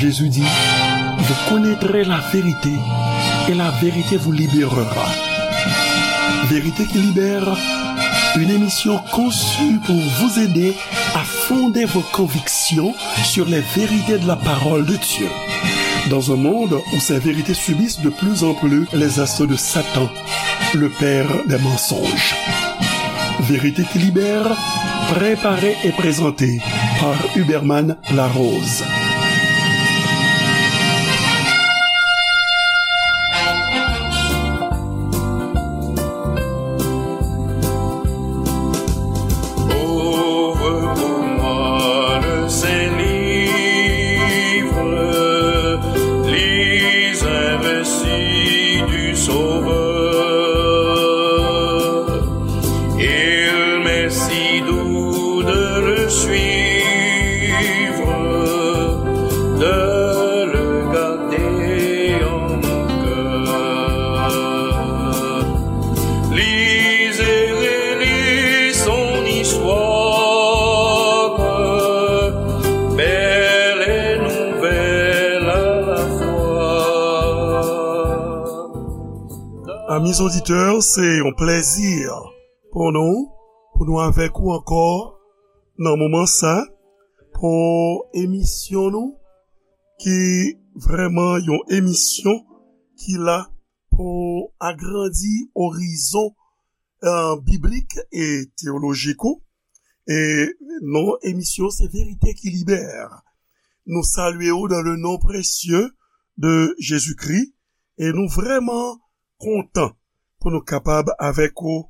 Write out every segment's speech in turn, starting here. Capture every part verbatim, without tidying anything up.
Jésus dit, vous connaîtrez la vérité et la vérité vous libérera. Vérité qui libère, une émission conçue pour vous aider à fonder vos convictions sur les vérités de la parole de Dieu. Dans un monde où ces vérités subissent de plus en plus les assauts de Satan, le père des mensonges. Vérité qui libère, préparée et présentée par Huberman Larose. Ouvre pour moi le Saint-Livre, lis un récit du Sauveur. Il m'est si doux de le suivre, de le garder en mon cœur. Lis et relis son histoire, belle et nouvelle à la fois. Amis auditeurs, se yon plèzi pou nou, pou nou avèk ou ankò nan moman sa, pou emisyon nou, ki vrèman yon emisyon ki la pou agrandi orizon, eh, biblik e teyolojik ou. E non emisyon se Verite ki Libè. Nou salye ou dans le nom précieux de Jésus-Christ e nou vrèman kontan pou nou kapab avèk ou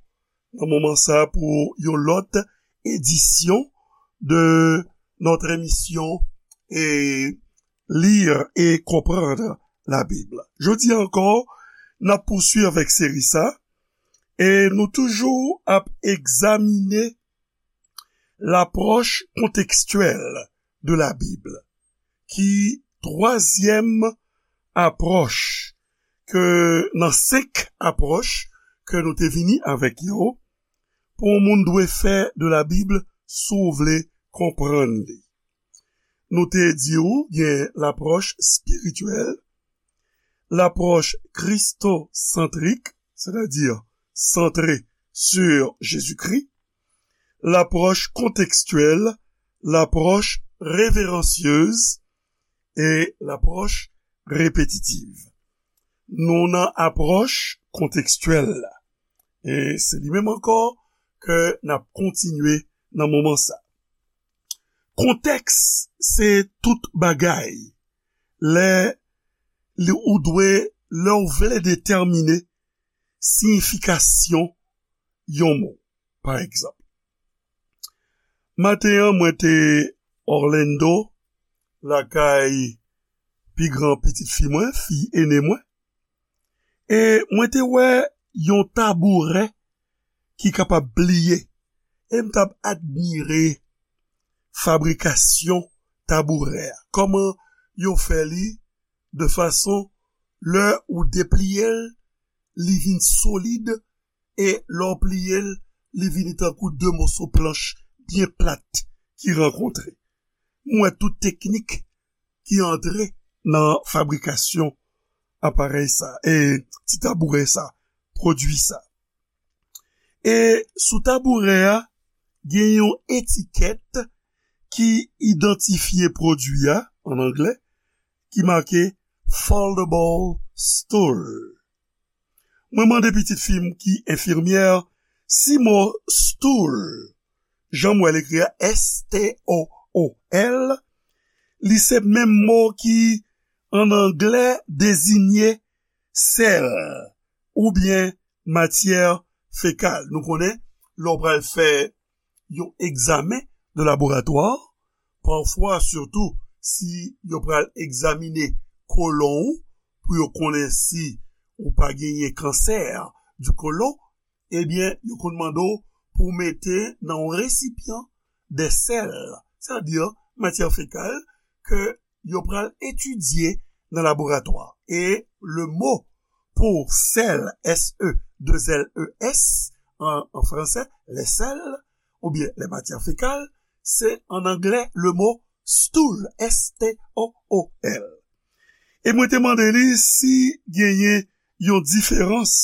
nan moman sa pou yon lòt edisyon de notre émission et lire et comprendre la Bible. Jodi a ankò, n ap pouswiv avèk seri sa e nou toujou ap egzamine l'approche contextuelle de la Bible, ki twazyèm apwòch ke nan senk apwòch ke nou te vini avèk yo, pou yon moun dwe fè de la Bible si w vle konprann li. Nou te di w gen lapwòch espirityèl, lapwòch kristosantrik, sètadi santre sur Jésus-Christ, lapwòch kontekstyèl, lapwòch reveransyez e lapwòch repetitiv. Nou nan apwòch kontekstyèl la. E se li menm ankò ke n ap kontinye nan moman sa. Kontèks se tout bagay. Lè li, ou dwe, lè w vle detèmine siyifikasyon yon mo, pa egzanp. Maten an, mwen te Orlando, lakay pi gran pitit fi mwen, fi ene mwen. E mwen te wè yon tabourè ki kapab pliye. E m t ap admire fabrikasyon tabourè a. Kòman yo fè li de fason, lè ou depliye l, li vin solid, e lè w pliye l, li vini tankou de moso planch byen plat ki rankontre. M wè tout teknik ki antre nan fabrikasyon aparèy sa, e ti tabourè sa, pwodui sa. E sou tabourè a, gen yon etikèt ki idantifye pwodui a, an anglè, ki make foldable stool. Mwen mande pitit fi m ki enfimyè si mo stool, jan m wè l ekri a, S T O O L, li se menm mo ki, an anglè, dezinye sèl oubyen matyè fekal. Nou konnen, lè w pral fè yon egzamen de laboratwa, pafwa, sitou si yo pral egzamine kolon ou, pou yo konnen si ou pa genyen kansè di kolon, ebyen, yo konn mande w pou w mete nan yon resipyan de sèl, sètadi matyè fekal, ke yo pral etidye nan laboratwa. E le mo pou sèl, S E, de L E S, an, an fransè, les sels, oubyen les matières fécales, se an anglè le mo stool, S T O O L. E mwen te mande li si genyen yon diferans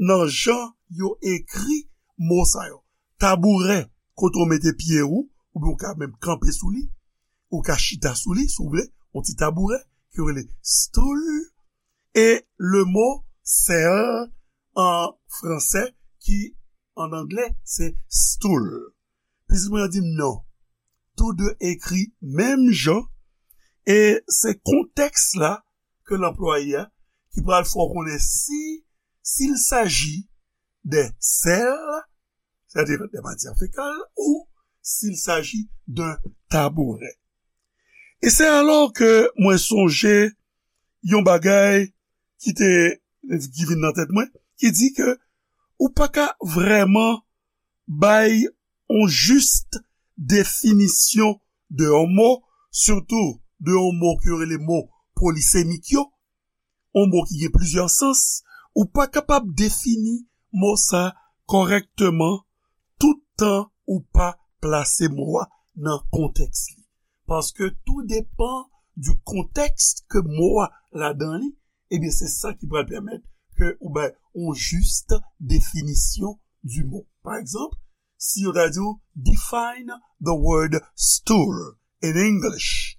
nan jan yo ekri mo sa yo. Tabourè, kote w mete pye ou, oubyen ou ka menm kanpe sou li, ou ka chita sou li, si w vle, yon ti tabourè, ki yo rele stool, e le mo sèl an fransè, ki an anglè, se stool. Pitit mwen an di m non. Tou de ekri menm jan, e se kontèks la ke l anplwaye a ki pral fè w konnen si, s'il s'agit de sèl, c'est-à-dire des matières fécales, ou s'il s'agit d'un tabouret. E se alò ke mwen sonje yon bagay ki te, ki vin nan tèt mwen, ki di ke ou pa ka vrèman bay yon jis definisyon de yon mo, sitou de yon mo ke yo rele mo polisemik yo, yon mo ki gen plizyè sans, ou pa kapab defini mo sa kòrèkteman tout tan ou pa plase mo a nan kontèks li. Paske tou depan di kontèks ke mo a ladan li, ebyen, se sa ki pral pèmèt ke ou bay yon jis definisyon di mo. Pa egzanp, si yo ta di w, "Define the word stool in English."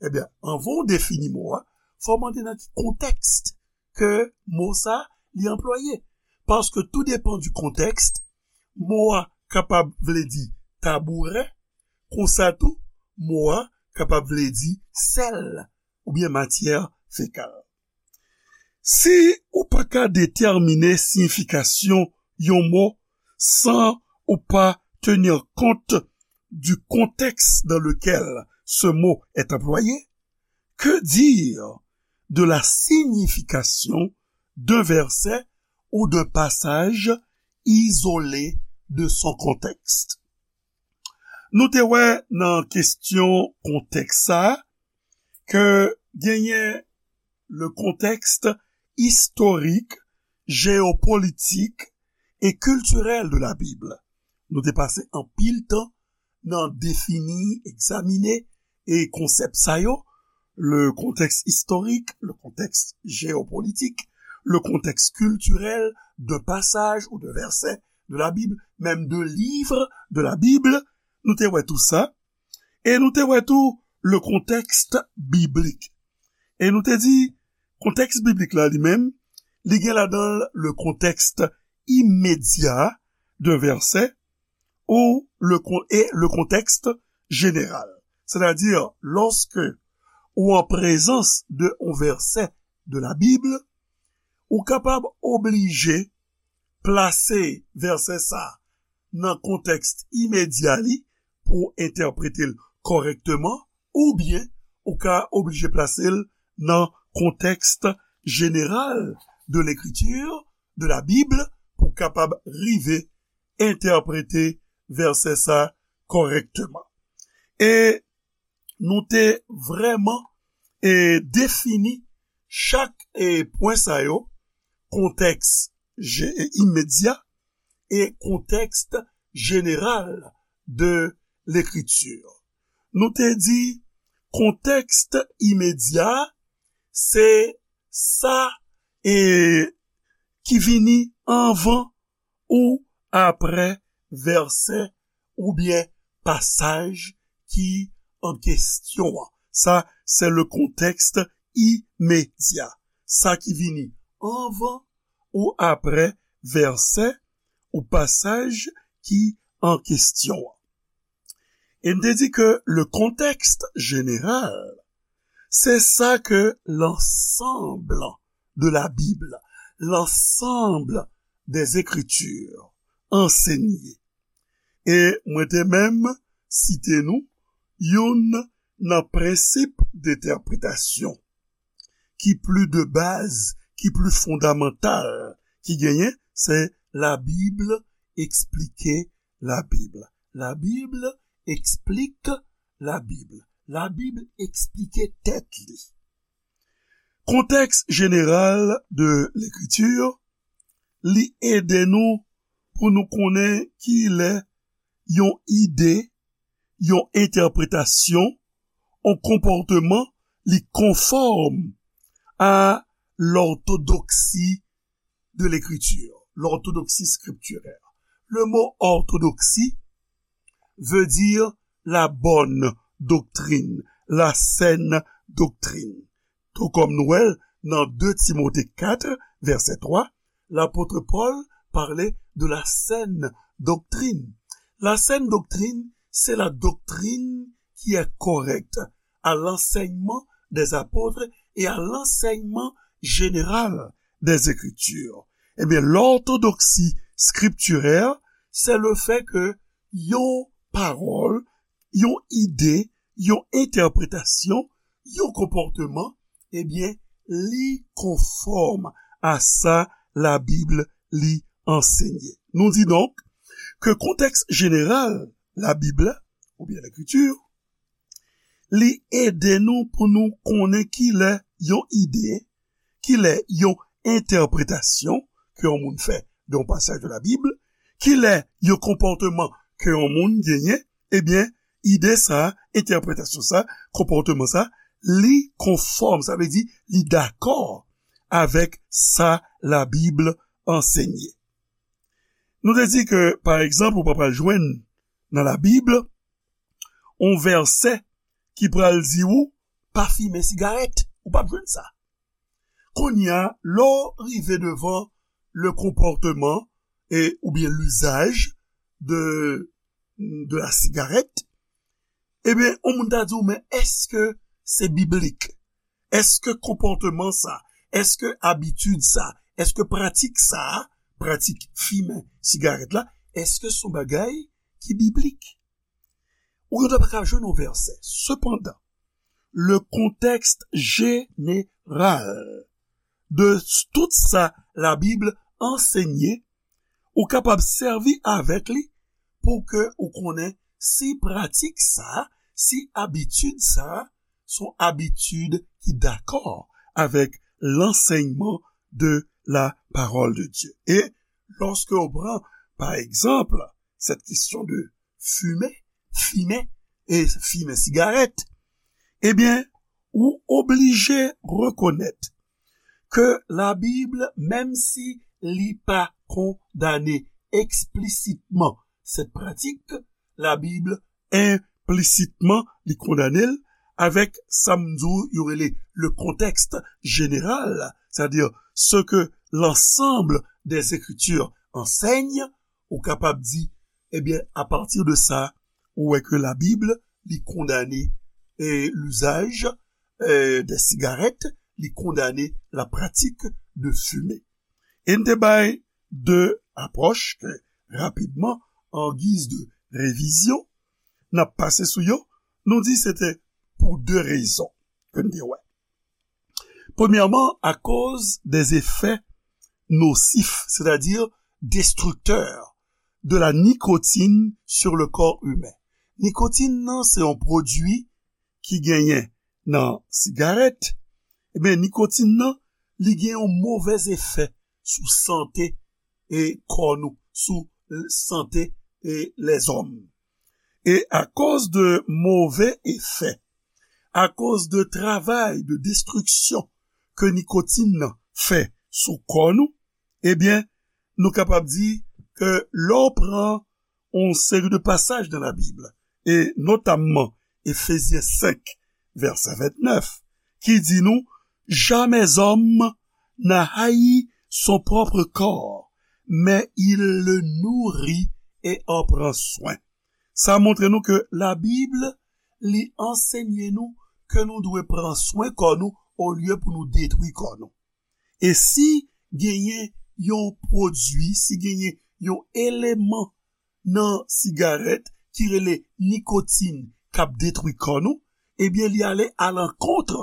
Ebyen, anvan w defini mo a, fò w mande nan ki kontèks ke mo sa li anplwaye. Paske tou depan di kontèks, mo a kapab vle di tabourè, konsa tou, mo a kapab vle di sèl oubyen matyè fekal. Si ou pa ka detèmine siyifikasyon yon mo san ou pa tenir compte du contexte dans lequel ce mot est employé, que dire de la signification d'un verset ou d'un passage isolé de son contexte? Nou te wè nan kesyon kontèks sa a ke genyen le contexte historique, géopolitique et culturel de la Bible. Nou te pase anpil tan nan defini, egzamine e konsèp sa yo, le contexte historique, le contexte géopolitique, le contexte culturel d'un passage ou d'un verset de la Bible, même de livres de la Bible. Nou te wè tou sa. E nou te wè tou le contexte biblique. E nou te di, kontèks biblik la li menm, li gen ladan l le contexte immédiat d'un verset ou le con-, et le contexte général. C'est-à-dire, lorsque ou an prezans de yon vèsè de la Bib, ou kapab oblije plase vèsè sa nan kontèks imedya li pou entèprete l kòrèkteman, oubyen ou ka oblije plase l nan contexte général de l'écriture, de la Bible, pou kapab rive entèprete vèsè sa kòrèkteman. E nou te vrèman, e, defini chak, e, pwen sa yo, kontèks je-, e, imedya e kontèks jeneral de lekritir. Nou te di kontèks imedya, se sa, e, ki vini anvan ou apre vèsè oubyen pasaj ki an kesyon an. Sa, se le contexte immédiat. Sa ki vini anvan ou apre vèsè ou pasaj ki an kesyon an. E n te di ke le contexte général, se sa ke l'ensemble de la Bible, l'ensemble des Écritures ansenye. E mwen te menm site nou youn nan prensip dentèpretasyon ki pli de baz, ki pli fondamantal ki genyen, se la Bible explique la Bible. La Bible explique la Bible. La Bib eksplike tèt li. Kontèks jeneral de lekritir, li ede nou pou nou konnen kilè yon ide, yon entèpretasyon, yon konpòteman li conforme à l'orthodoxie de l'écriture, l'orthodoxie scripturaire. Le mot orthodoxie veut dire la bonne doctrine, la saine doctrine. Tou kòm nou wè l nan de Timote kat, vèsè twa, lapot Pòl pale de la saine doctrine. La saine doctrine, c'est la doctrine qui est correcte à l'enseignement des apôtres et à l'enseignement général des Écritures. Ebyen, l'orthodoxie scripturaire, c'est le fait que yon pawòl, yon ide, yon entèpretasyon, yon konpòtman, ebyen, li konfòm a sa Labib li ansenye. Nou di donk ke kontèks jeneral Labib la, oubyen Lekriti, li ede nou pou nou konnen kilè yon ide, kilè yon entèpretasyon ke yon moun fè de yon pasaj de Labib, kilè yon konpòtman ke yon moun genyen, ebyen, ide sa, entèpretasyon sa, konpòtman sa, li konfòm, sa vle di li dakò avèk sa Labib ansenye. Nou te di ke, pa egzanp, ou pa pral jwenn nan Labib yon vèsè ki pral di ou pa fimen sigarèt. Ou p ap jwenn sa. Kounye a, lè w rive devan le comportement et, oubyen l'usage de, de la cigarette, ebyen, yon moun ta di w, men èske se biblik? Èske konpòtman sa? Èske abitid sa? Èske pratik sa? Pratik fimen sigarèt la, èske se yon bagay ki biblik? Ou gentan pa ka jwenn yon vèsè. Sepandan, le contexte général de tout sa Labib ansenye, ou kapab sèvi avèk li pou ke ou konnen si pratik sa, si abitid sa, se yon abitid ki dakò avèk lansèyman de la parole de Dieu. E lòske ou pran, pa egzanp, cette question de fumer, fimen, e fimen sigarèt, ebyen, ou oblije rekonèt ke Labib, menm si li pa kondane eksplisitement cette pratique, Labib enplisitman li kondane l avèk sa m di w yo rele le contexte général, c'est-à-dire ce que l'ensemble des Écritures enseignent, ou kapab di, ebyen, apati de sa, ou wè ke Labib li kondane, eh, l'usage, eh, des cigarettes, li kondane la pratique de fumer. E n te bay de apwòch ke, rapidman, an giz de revizyon, n ap pase sou yo, nou di se te pou de rezon ke n te wè. Premyèman, akoz des effets nocifs, c'est-à-dire destructeurs, de la nicotine sur le corps humain. Nikotin nan se yon pwodui ki genyen nan sigarèt, ebyen, nikotin nan, li gen yon movèz efè sou sante e kò nou, sou sante e lèzòm. E akoz de move efè, akoz de travay de destriksyon ke nikotin nan fè sou kò nou, ebyen, nou kapab di ke lè w pran yon seri de pasaj nan Labib, e notamman Efezyen senk, vèsè ventnèf, ki di nou, jamais homme n'a haï son propre corps, mais il le nourrit et en prend soin. Sa montre nou ke Labib, li ansenye nou ke nou dwe pran swen kò nou olye pou nou detwi kò nou. E si genyen yon pwodui, si genyen yon eleman nan sigarèt ki rele nikotin k ap detwi kò nou, ebyen, li ale alankont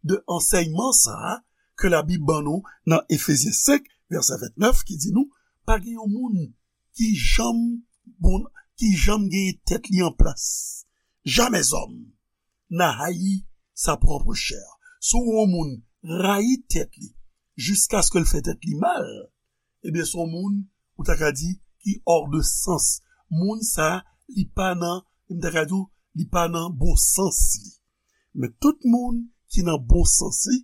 de ansèyman sa a ke Labib ban nou nan Efezyen senk, vèsè ventnèf, ki di nou, pa gen yon moun ki janm bon, ki janm genyen tèt li an plas. Jamais homme n'a haï sa propre chair. Si w wè yon moun rayi tèt li, jiskaske l fè tèt li mal, ebyen, se yon moun, ou ta ka di, ki hors de sens. Moun sa, li pa nan, m ta ka di w, li pa nan bon sans li. Men tout moun ki nan bon sans li,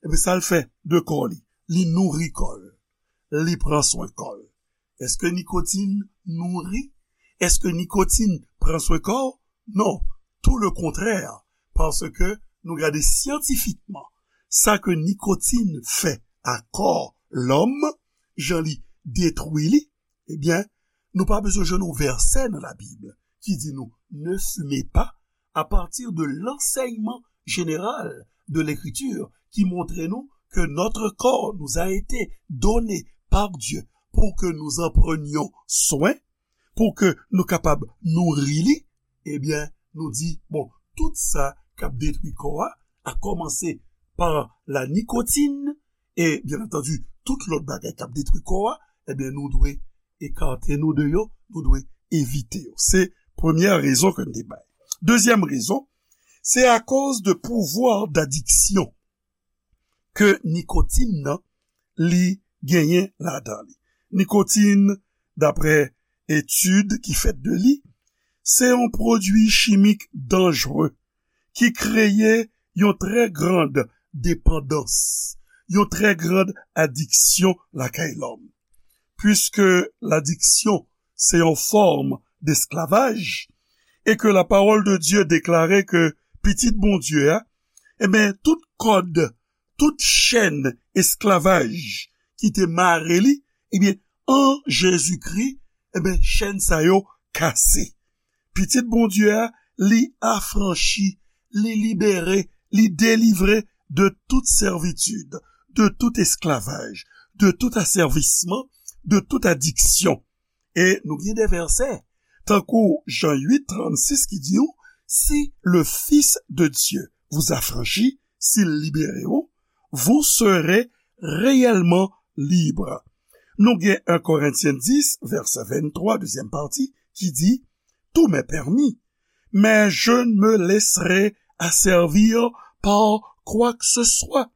ebyen, sa l fè de kò li? Li nouri kò l. Li pran swen kò l. Èske nikotin nouri? Èske nikotin pran swen kò w? Non, tou le kontrè, paske nou gade syantifikman sa ke nikotin fè a kò lòm, jan li detwi li, ebyen, nou pa bezwen jwenn yon vèsè nan Labib ki di nou, ne fumez pas, à partir de l'enseignement général de l'Écriture qui montre nous que notre corps nous a été donné par Dieu pour que nous en prenions soin, pou ke nou kapab nouri li, ebyen, nou di, bon, tout sa k ap detwi kò a, a kòmanse pa la nikotin, e, byen antandi, tout lòt bagay k ap detwi kò a, ebyen, nou dwe ekate nou de yo, nou dwe evite yo. Se premyè rezon ke n te bay. Dezyèm rezon, se akoz de pouvwa dadiksyon ke nikotin nan li genyen ladan li. Nikotin, daprè etid ki fèt de li, se yon pwodui chimik danjre ki kreye yon trè grand depandans, yon trè grand adiksyon lakay lòm. Puiske ladiksyon se yon fòm desklavaj, e ke la pawòl de Dye deklare ke Pitit Bondye a, ebyen, tout kòd, tout chèn esklavaj ki te mare li, ebyen, an Jezikri, ebyen, chèn sa yo kase. Pitit Bondye a, li afranchi, li libere, li delivre de tout sèvitid, de tout esklavaj, de tout asèvisman, de tout adiksyon. E nou gen de vèsè, tankou Jan uit, trannsis ki di w, si le Fils de Dieu vous affranchit, si l libere w, vous serez réellement libre. Nou gen en Korentyen dis, vèsè venntwa, dezyèm pati, ki di, tout m'est permis, mais je ne me laisserai asservir par quoi que ce soit.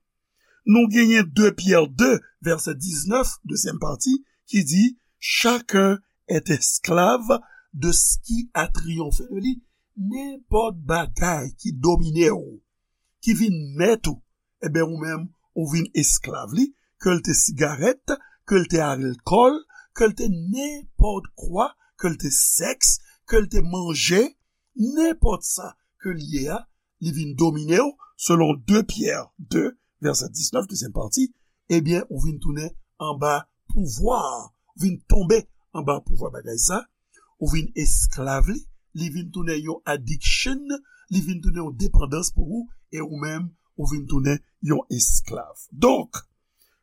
Nou genyen de Pyè de, vèsè diznèf, dezyèm pati, ki di, chacun est esclave de ce qui a triomphé de lui. Nenpòt bagay ki domine w, ki vin mèt ou, ebyen, ou menm, ou vin esklav li, ke l te sigarèt, ke l te alkòl, ke l te nenpòt kwa, ke l te sèks, ke l te manje, nenpòt sa ke l ye a, li vin domine w, selon de Pyè de, vèsè diznèf, dezyèm pati, ebyen, ou vin tounen anba pouvwa, ou vin tonbe anba pouvwa bagay sa, ou vin esklav li, li vin tounen yon addiction, li vin tounen yon depandans pou ou, e ou menm, ou vin tounen yon esklav. Donk,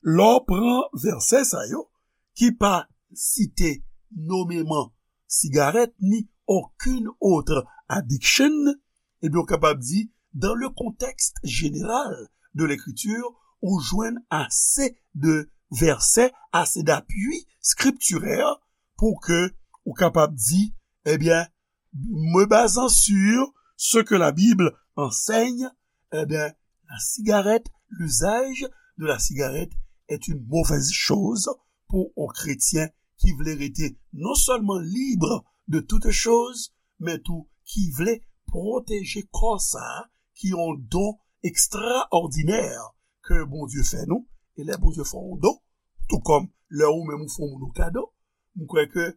lè w pran vèsè sa yo, ki pa site nomeman sigarèt ni okenn òt addiction, ebyen, ou kapab di, dans le contexte général de l'écriture, ou jwenn ase de vèsè, ase d'apui skriptirè pou ke ou kapab di, ebyen, me basant sur ce que la Bible enseigne, ebyen, la cigarette, l'usage de la cigarette est une mauvaise chose pour un chrétien ki vle rete non sèlman libre de toutes choses, men tou ki vle pwoteje kò sa a, ki yon don ekstraòdinè ke Bondye fè nou. E lè Bondye fè yon don, tou kòm lè ou menm ou fè yon moun yon kado, m kwè ke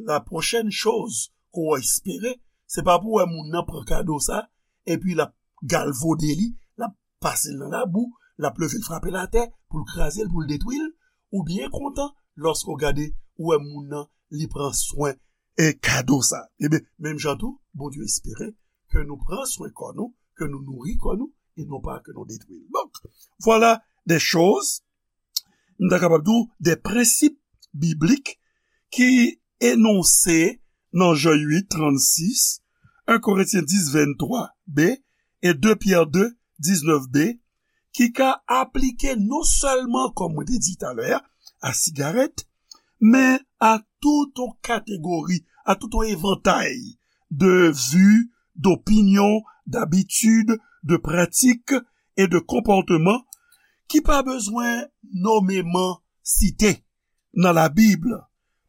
la pwochèn choz ke w espere, se pa pou w wè moun nan pran kado sa, epi l ap galvode li, l ap pase l nan labou, l ap leve l frape l atè, pou l kraze l, pou l detwi l, ou byen kontan lòske w gade, ou wè moun nan, li pran swen e kado sa. Ebyen, menm jan tou, Bondye espere ke nou pran swen kò nou, ke nou nouri kò nou, e non pa ke nou detwi l. Donk, vwala de choz, m ta kapab di w, de prensip biblik ki enonse nan Jan uit, trannsis, en Korentyen dis, venntwa b, e de Pyè de, diznèf b, ki ka aplike non sèlman, kòm mwen te di talè a, a sigarèt, men a tout yon kategori, a tout yon evantay de vi, dopinyon, dabitid, de pratik e de konpòteman ki pa bezwen nomeman site nan Labib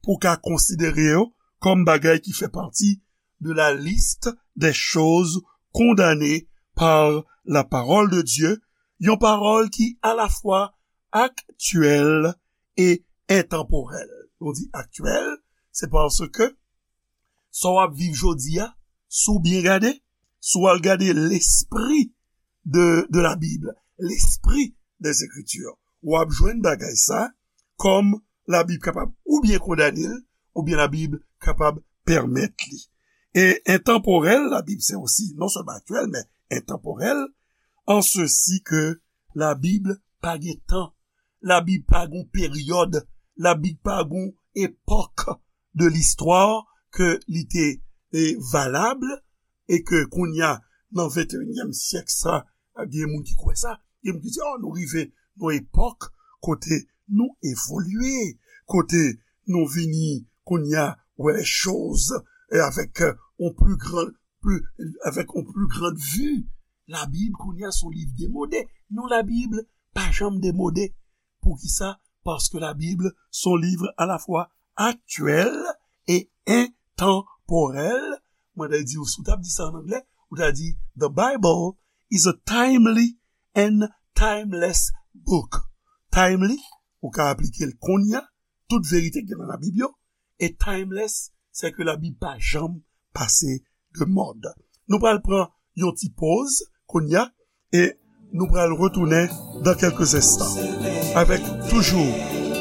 pou w ka konsidere yo kòm bagay ki fè pati de la liste des choses condamnées par la parole de Dieu, yon pawòl ki alafwa aktyèl e entanporèl. Nou di aktyèl, se paske sa w ap viv jodi a, si w byen gade, si w al gade lespri de, de la Bible, l'esprit des Écritures, w ap jwenn bagay sa kòm Labib kapab oubyen kondane l, oubyen Labib kapab pèmèt li. E entanporèl, Labib se osi non sèlman aktyèl, men entanporèl, an sesi ke Labib pa gen tan, Labib pa gen peryòd, Labib pa gen epòk de listwa ke li te, e, valab, e ke kounye a, nan venteyinyèm syèk sa, gen moun ki kwè sa, gen moun ki di, oh, nou rive nan epòk kote nou evolye, kote nou vini kounye a wè lè choz, e avèk, e, on pli gran, pli, avèk on pli gran vi. Labib kounye a se yon liv demode. Non, Labib pa janm demode. Poukisa? Paske Labib se yon liv alafwa aktyèl e entanporèl. Mwen ta di w, si w t ap di sa an anglè, ou ta di, The Bible is a timely and timeless book. Timely, ou ka aplike l kounye a, tout verite ki gen nan Labib yo, e timeless, se ke Labib pa janm pase de mòd. Nou pral pran yon ti poz kounye a, e nou pral retounen dans quelques instants avec toujours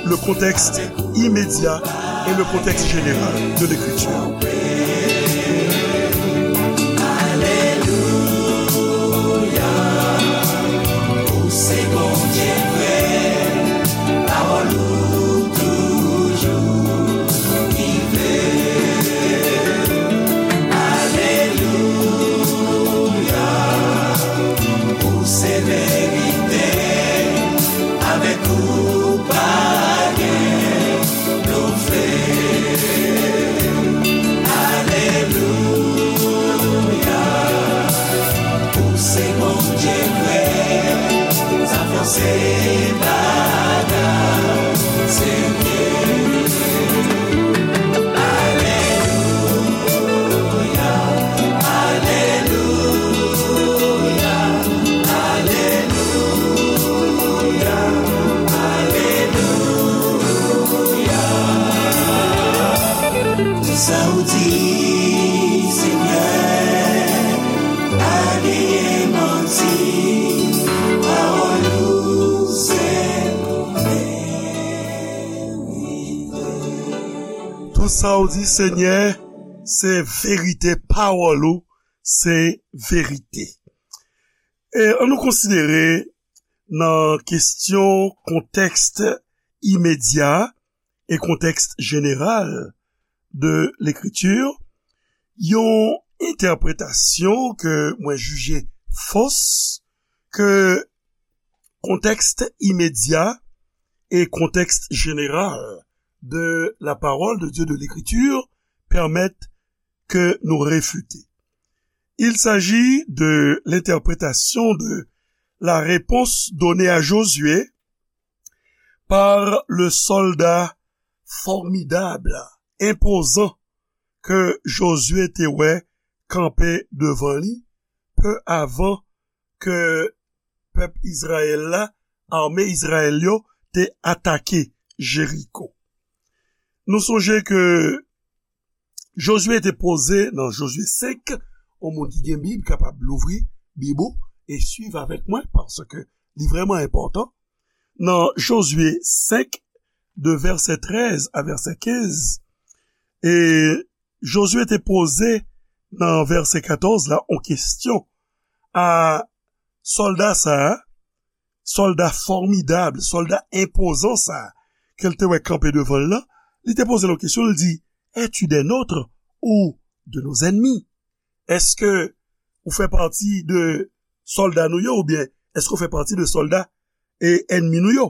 le contexte immédiat et le contexte général de l'écriture. Alelouya, ou se Bondye vrè, pawòl ou toujou vivan. Alelouya, ou se verite, avèk ou pa gen blofè. Alelouya, ou se Bondye vrè, sa fòse bagay, Senyè. Alelouya, alelouya, alelouya, alelouya. Tout sa ou di, Senyè, pa genyen manti, pawòl ou se verite. Tout sa ou di, Senyè, se verite, pawòl ou se verite. E ann nou konsidere nan kesyon kontèks imedya e kontèks jeneral de lekriti, yon entèpretasyon ke mwen jije fos, ke kontèks imedya e kontèks jeneral de la parole de Dieu, de l'écriture, permettent que nous réfuter. Il s'agit de l'interprétation de la réponse donnée à Josué par le soldat formidable, imposant, ke Jozye te wè kanpe devan li, pe avan ke pèp Izrayèl la, ame Izrayèl yo, te atake Jeriko. Nou sonje ke Jozye te poze nan Jozye senk, yon moun ki gen Bib kapab louvri Bib ou e swiv avèk mwen, paske li vrèman enpòtan. Nan Jozye senk, de vèsè trèz a vèsè kenz, e Jozye te poze nan vèsè katòz la yon kesyon a sòlda sa a, sòlda fòmidab, sòlda enpozan sa a, ke l te wè kanpe devan l lan, li te poze l yon kesyon, li di, es-tu des nôtres ou de nos ennemis? Èske ou fè pati de sòlda nou yo, oubyen èske ou fè pati de sòlda e ènmi nou yo?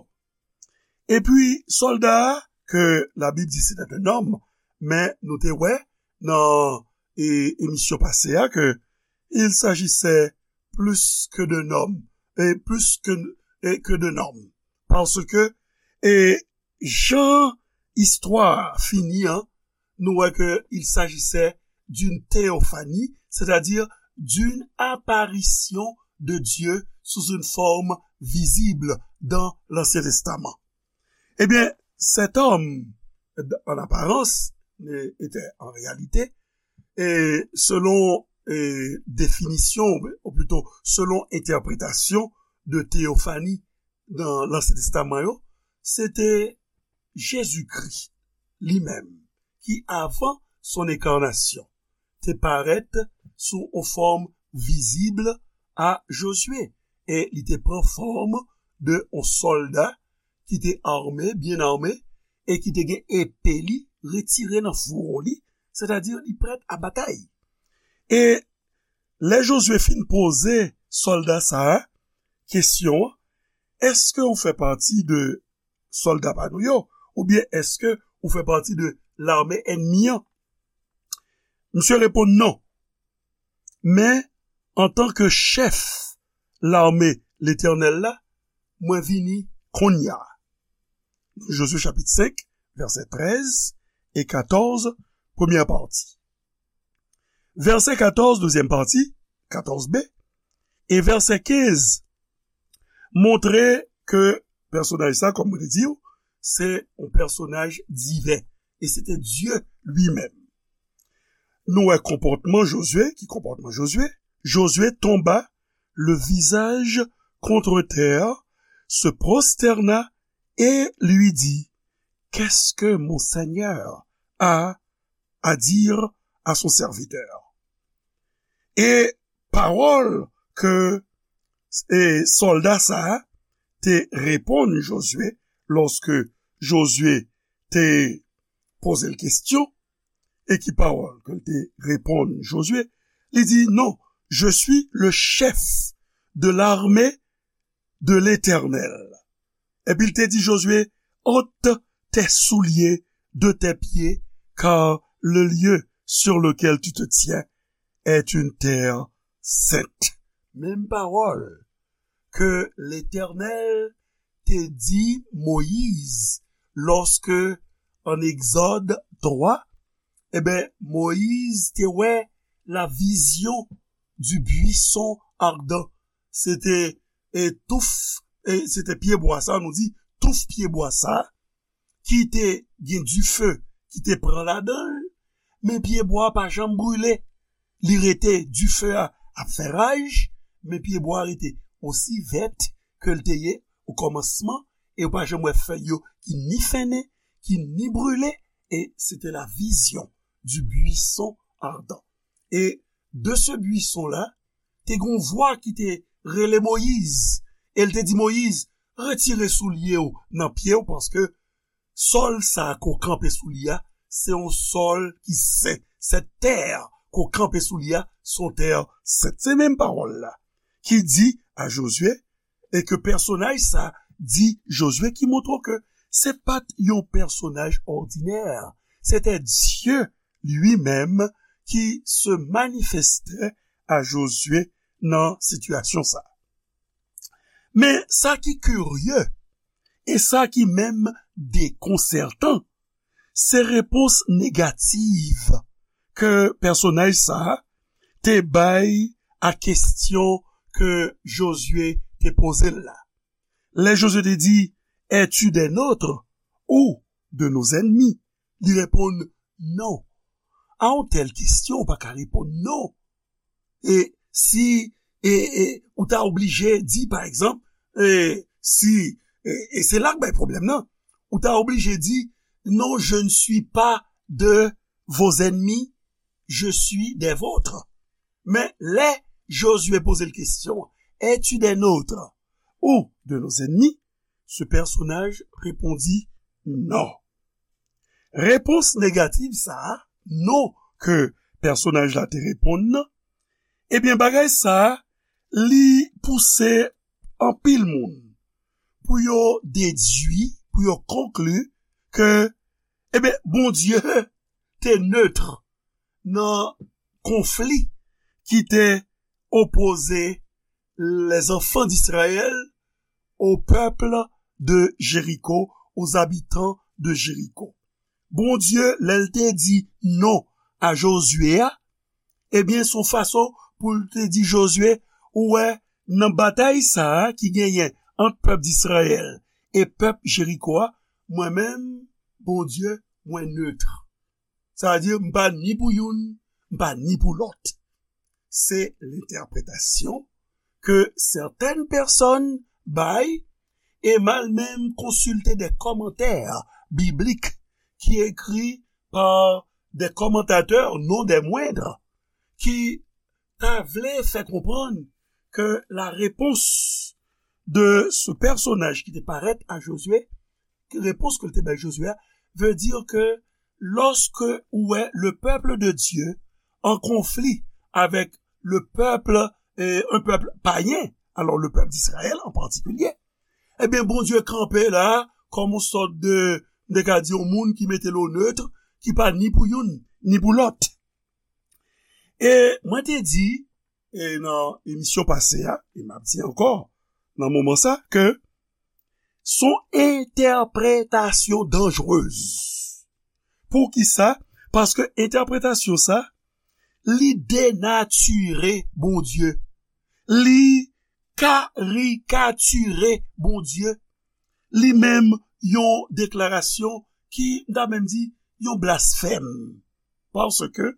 Epi, sòlda a, ke Labib di se te un homme, men nou te wè nan, e, emisyon pase a ke il s'agissait plus que d'un homme, e plus que, e, que d'un homme. Paske, e, jan istwa a fini an, nou wè ke il s'agissait d'une théophanie, c'est-à-dire d'une apparition de Dieu sous une forme visible dans l'Ancien Testament. Eh bien, cet homme, en apparence, était en réalité, et selon et définition, ou plutôt selon interprétation de théophanie dans l'Ancien Testament, c'était Jésus-Christ lui-même, qui avant son incarnation, te parèt sou yon fòm vizib a Jozye, e li te pran fòm de yon sòlda ki te ame, byen ame, e ki te gen epe li retire nan fouwo li, sètadi li prèt a batay. E lè Jozye fin poze sòlda sa a kesyon an, èske ou fè pati de sòlda pa nou yo, oubyen èske ou fè pati de lame ènmi an? Misye reponn non. Men, antanke chèf lame Letènèl la, mwen vini kounye a. Jozye chapit senk, vèsè trèz e katòz, premyè pati. Vèsè katòz, dezyèm pati, katòz B, e vèsè kenz, montre ke pèsonaj sa, kòm mwen te di w, se yon pèsonaj diven. E se te Dye li menm. Nou wè konpòtman Jozye, ki konpòtman Jozye? Jozye tomba le visage contre terre, se prosterna et lui dit, qu'est-ce que mon Seigneur a à dire à son serviteur? E pawòl ke e sòlda sa a te reponn Jozye lòske Jozye te poze l kesyon, e ki pawòl ke l te reponn Jozye? Li di, non, je suis le chef de l'armée de l'Éternel. Epi l te di Jozye, ôte tes souliers de tes pieds, car le lieu sur lequel tu te tiens est une terre sainte. Menm pawòl ke Letènèl te di Moyiz lòske an Egzòd twa, e ben, Moyiz te wè la vision du buisson ardent. Se te e touf, e se te pyebwa sa, nou di touf pyebwa sa, ki te gen dife ki te pran ladan l, men pyebwa a pa janm brile. Li rete, dife a ap fè raj, men pyebwa a rete osi vèt ke l te ye o kòmansman, e ou pa janm wè fèy yo ki ni fennen, ki ni brile, e se te la vision du buisson ardent. E de ce buisson-là, te gen yon vwa ki te rele Moyiz, e l te di Moyiz, retire soulye w nan pye w, paske sòl sa a ke w kanpe sou li a, se yon sòl ki sen. Cette terre ke w kanpe sou li a, se yon tè sent. Se menm pawòl la ki di a Jozye, e ke pèsonaj sa di Jozye, ki montre w ke se pa t yon pèsonaj òdinè. Se te Dye li menm ki se manifeste a Jozye nan sitiyasyon sa. Men sa ki kirye, e sa ki menm dekonsètan, se repons negatif ke pèsonaj sa a te bay a kesyon ke Jozye te poze l la. Lè Jozye te di, es-tu des nôtres ou de nos ennemis? Li reponn, non. A yon tèl kesyon, ou pa ka reponn non. E si e, e, ou ta oblije di, pa egzanp, e, si, e, e se la k bay pwoblèm nan, ou ta oblije di, non, je ne suis pas de vos ennemis, je suis des vôtres. Men lè Jozye poze l kesyon, es-tu des nôtres ou de nos ennemis? Ce personnage répondit non. Repons negatif sa a, non ke pèsonaj la te reponn nan, ebyen, bagay sa a, li pouse anpil moun pou yo dedui, pou yo konkli ke, ebyen, Bondye te neutre nan konfli ki te opoze les enfants d'Israël au peuple de Jéricho, aux habitants de Jéricho. Bondye, lè l te di non a Jozye a, ebyen, se yon fason pou l te di Jozye, ou wè, nan batay sa a ki genyen ant pèp Izrayèl e pèp Jeriko a, mwen menm, Bondye, mwen neutre. Sa vle di, m pa ni pou youn, m pa ni pou lòt. Se lentèpretasyon ke sètèn pèsòn bay, e m al menm konsilte de kòmantè biblik ki ekri pa de kòmantatè, non des moindres, ki ta vle fè konprann ke la repons de ce personnage ki te parèt a Jozye, ke repons ke l te bay Jozye a, veut dire ke lorsque ou wè le peuple de Dieu en conflit avec le peuple, euh, un peuple païen, alors le peuple d'Israël en particulier, ebyen, Bondye kanpe la, kòm yon sòt de, m te ka di, yon moun ki mete l o neutre, ki pa ni pou youn, ni pou lòt. E mwen te di, e nan emisyon pase a, e m ap di ankò, nan moman sa, ke s on entèpretasyon danjrez. Poukisa? Paske entèpretasyon sa, li denatire Bondye. Li karikatire Bondye. Li menm yon deklarasyon ki, m ta menm di, yon blasfèm. Paske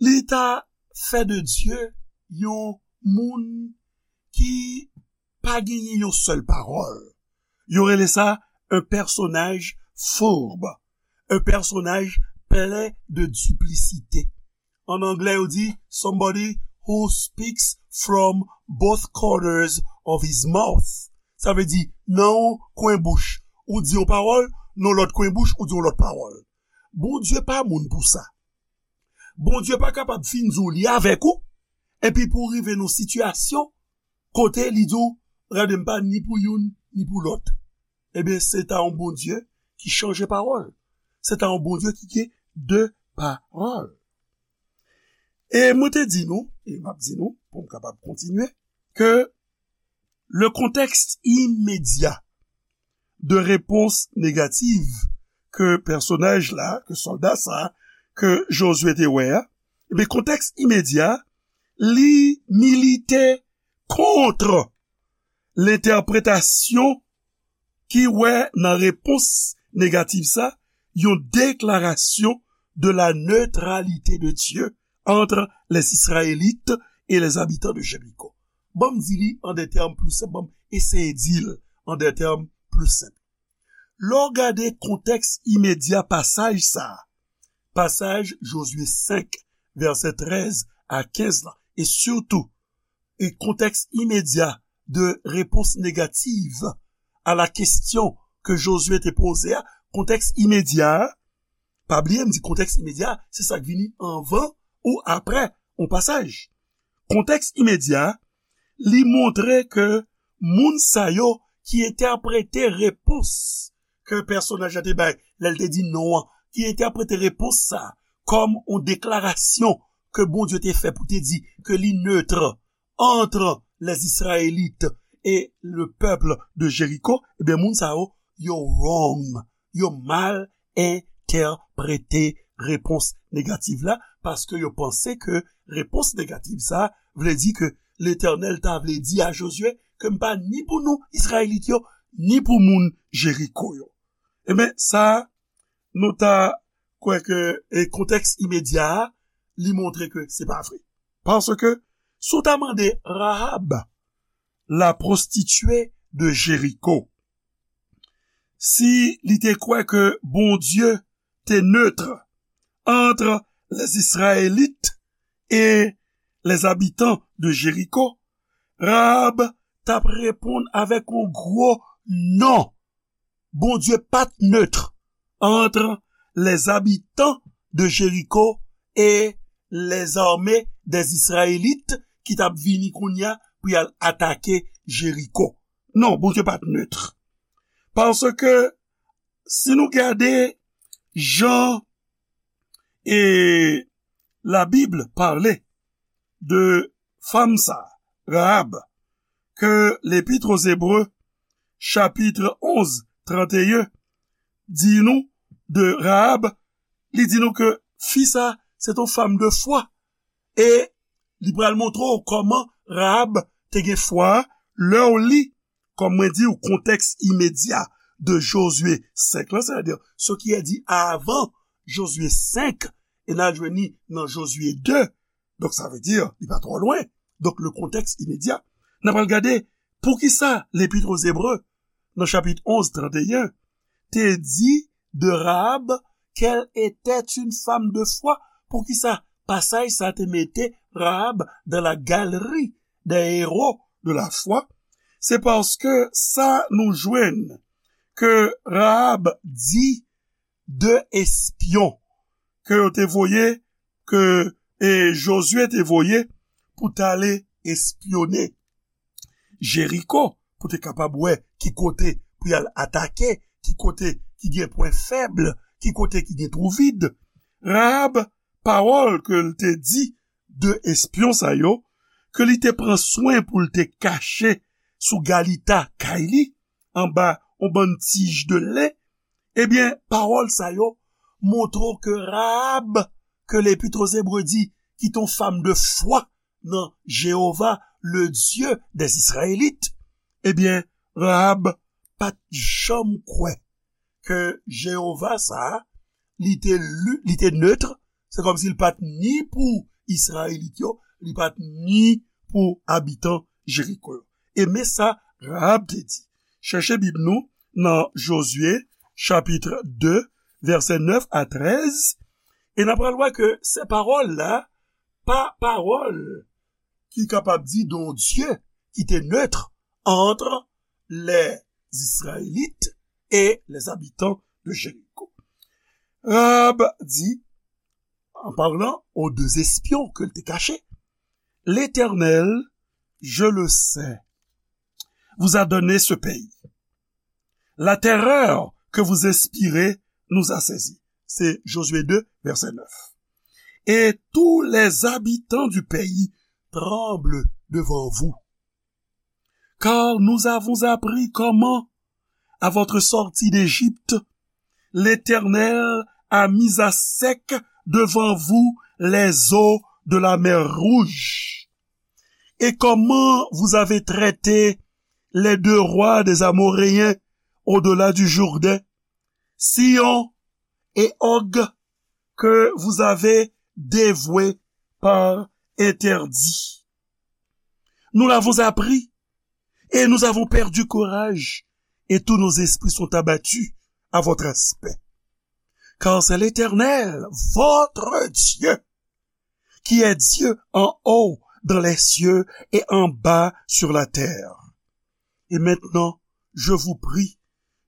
li ta fè de Dye yon moun ki pa genyen yon sèl pawòl. Yo rele sa un personnage fourbe, un personnage plein de duplicité. An anglè, yo di somebody who speaks from both corners of his mouth. Sa vle di, nan yon kwen bouch, ou di yon pawòl, nan lòt kwen bouch, ou di yon lòt pawòl. Bondye pa moun pou sa. Bondye pa kapab fin di w li avèk ou, epi pou w rive nan sitiyasyon kote li di w, gade, m pa ni pou youn, ni pou lòt. Ebyen, se ta yon Bondye ki chanje pawòl. Se ta yon Bondye ki gen de pawòl. E mwen te di nou, e m ap di nou, pou m kapab kontinye, ke le contexte immédiat de réponse négative ke pèsonaj la, ke sòlda sa, ke Jozye te wè a, ebyen, kontèks imedya, li milite kont lentèpretasyon ki wè nan repons negatif sa, yon deklarasyon de la neutralité de Dieu entre les Israélites et les habitants de Jéricho. Ban m di li an de tèm pli senp, ban m eseye di l an de tèm pli senp. Lè w gade kontèks imedya pasaj sa a, pasaj Jozye senk, vèsè trèz a kenz la, e sitou, e kontèks imedya de repons negatif a la kesyon ke Jozye te poze a, kontèks imedya a, pa bliye m di kontèks imedya a, se sa k vini anvan ou aprè yon pasaj. Kontèks imedya a, li montre ke moun sa yo ki entèprete repons ke pèsonaj la te bay lè l te di non an, ki entèprete repons sa a kòm yon deklarasyon ke Bondye te fè pou te di ke li neutre entre les Israélites et le peuple de Jéricho, ebyen, moun sa yo, yo wrong, yo mal entèprete repons negatif la, paske yo panse ke repons negatif sa vle di ke Letènèl ta vle di a Jozye ke m pa ni pou nou, Izrayelit yo, ni pou moun Jeriko yo. Ebyen, sa, nou ta kwè ke, e, kontèks imedya a, li montre ke se pa vre. Paske, si w ta mande Rahab, la prostituée de Jéricho, si li te kwè ke Bondye te neutre entre les Israélites et les habitants de Jéricho, Rahab t ap reponn avèk yon gwo non. Bondye pa t neutre entre les habitants de Jéricho et les armées des Israélites ki t ap vini kounye a pou y al atake Jeriko. Non, Bondye pa t neutre. Paske, si nou gade jan e Labib pale de fanm sa, Rahab, ke L'Épître aux Hébreux, chapitre onze, trente et un, di nou de Rahab, li di nou ke fi sa, se t on fanm de fwa. E Li pral montre w kòman Rahab te gen fwa a lè w li, kòm mwen di w, kontèks imedya de Jozye senk lan, sètadi ce qui est dit avant Jozye senk, e n al jwenn li nan Jozye de. Donk, sa vle di, li pa twò lwen. Donk, le contexte immédiat. N ap al gade poukisa Lepit aux Hébreux, nan chapit onz, trant e en, te di de Rahab qu'elle était une femme de foi. Poukisa pasaj sa te mete Rahab dans la galerie des héros de la foi? Se paske sa nou jwenn ke Rahab di de espyon ke yo te voye, ke e Jozye te voye pou t ale espyone Jeriko, pou te kapab wè ki kote pou y al atake, ki kote ki gen pwen fèb, ki kote ki gen twou vid. Rahab, pawòl ke l te di de espyon sa yo, ke li te pran swen pou l te kache sou galita kay li, anba yon bann tij de len, ebyen, pawòl sa yo montre w ke Rahab, ke Lepit aux Hébreux di, ki te yon fanm de fwa nan Jewova, le Dye dè Izrayèlit, ebyen, Rahab pa t janm kwè ke Jewova sa a, li te li, li te neutre, se kòmsi li pa t ni pou Izrayelit yo, li pa t ni pou abitan Jeriko yo. E men sa Rahab te di. Chèche Bib nou nan Jozye, chapit de, vèsè nèf a trèz, e n ap pral wè ke se pawòl la, pa pawòl ki kapab di de yon Dye ki te neutre entre les Israélites et les habitants de Jéricho. Rahab di, en parlant aux deux espions ke l te kache, L'Éternel, je le sais, vous a donné ce pays. La terreur que vous inspirez nous a saisis. C'est Josué deux, verset neuf. Et tous les habitants du pays tremblent devant vous. Car nous avons appris comment, à votre sortie d'Égypte, l'Éternel a mis à sec devant vous les eaux de la mer Rouge, et comment vous avez traité les deux rois des Amoréens au-delà du Jourdain, Sihon et Og, que vous avez dévoués par interdit. Nous l'avons appris et nous avons perdu courage, et tous nos esprits sont abattus à votre aspect. Car c'est l'Éternel, votre Dieu, qui est Dieu en haut dans les cieux et en bas sur la terre. Et maintenant, je vous prie,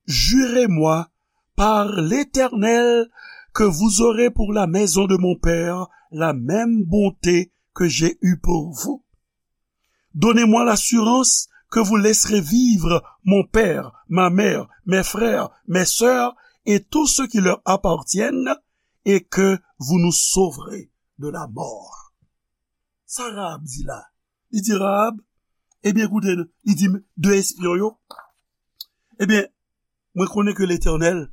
jurez-moi par l'Éternel que vous aurez pour la maison de mon père la même bonté que j'ai eue pour vous. Donnez-moi l'assurance que vous laisserez vivre mon père, ma mère, mes frères, mes sœurs et tous ceux qui leur appartiennent, et que vous nous sauverez de la mort. Sa Rahab di la? Li di Rahab, ebyen, koute, li di de espyon yo, ebyen, mwen konnen ke Letènèl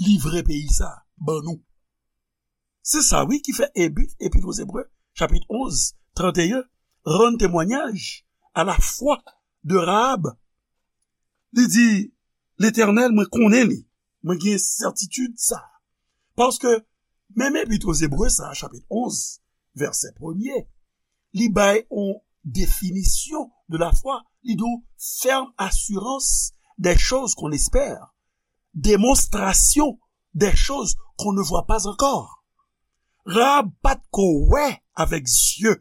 livre peyi sa ban nou. Se sa, wi, ki fè Ebi, Epître aux Hébreux, chapit onz, trant e en, rann temwayaj a la fwa de Rahab. Li di, Letènèl, mwen konnen li. Mwen gen sètitid sa. Paske, menm Epître aux Hébreux sa, chapit onz, vèsè premye, li bay yon definisyon de la foi. Li di w, ferme assurance des choses qu'on espère, démonstration des choses qu'on ne voit pas encore. Rahab pa t ko wè avèk zye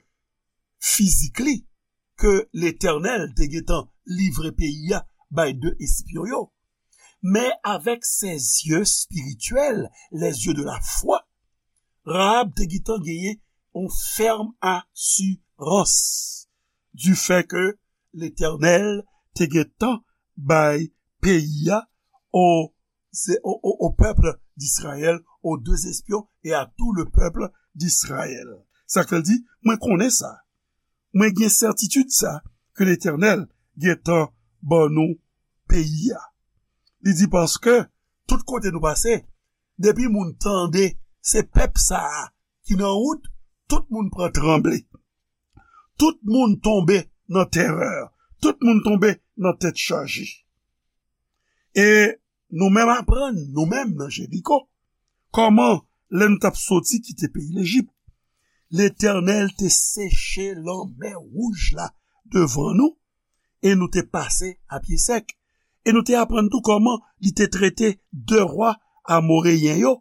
fizik li ke Letènèl te gentan livre peyi a bay de espyon yo. Men avèk ses yeux spirituels, les yeux de la foi, Rahab te gentan genyen yon fèm asirans du fait que Letènèl te gentan bay peyi a o, se, o, o, au peuple d'Israël, aux deux espions et à tout le peuple d'Israël. Sa k fè l di, mwen konnen sa. Mwen gen sètitid sa, ke Letènèl gentan ban nou peyi a. Li di, paske tout kote nou pase, depi moun tande se pèp sa a ki nan wout, tout moun pran tranble. Tout moun tonbe nan terè. Tout moun tonbe nan tèt chaje. E nou menm aprann, nou menm nan Jeriko, kòman lè nou t ap soti kite peyi Lejip, Letènèl te seche lanmè wouj la devan nou, e nou te pase a pye sèk. E nou te aprann tou kòman li te trete de wa amoreyen yo,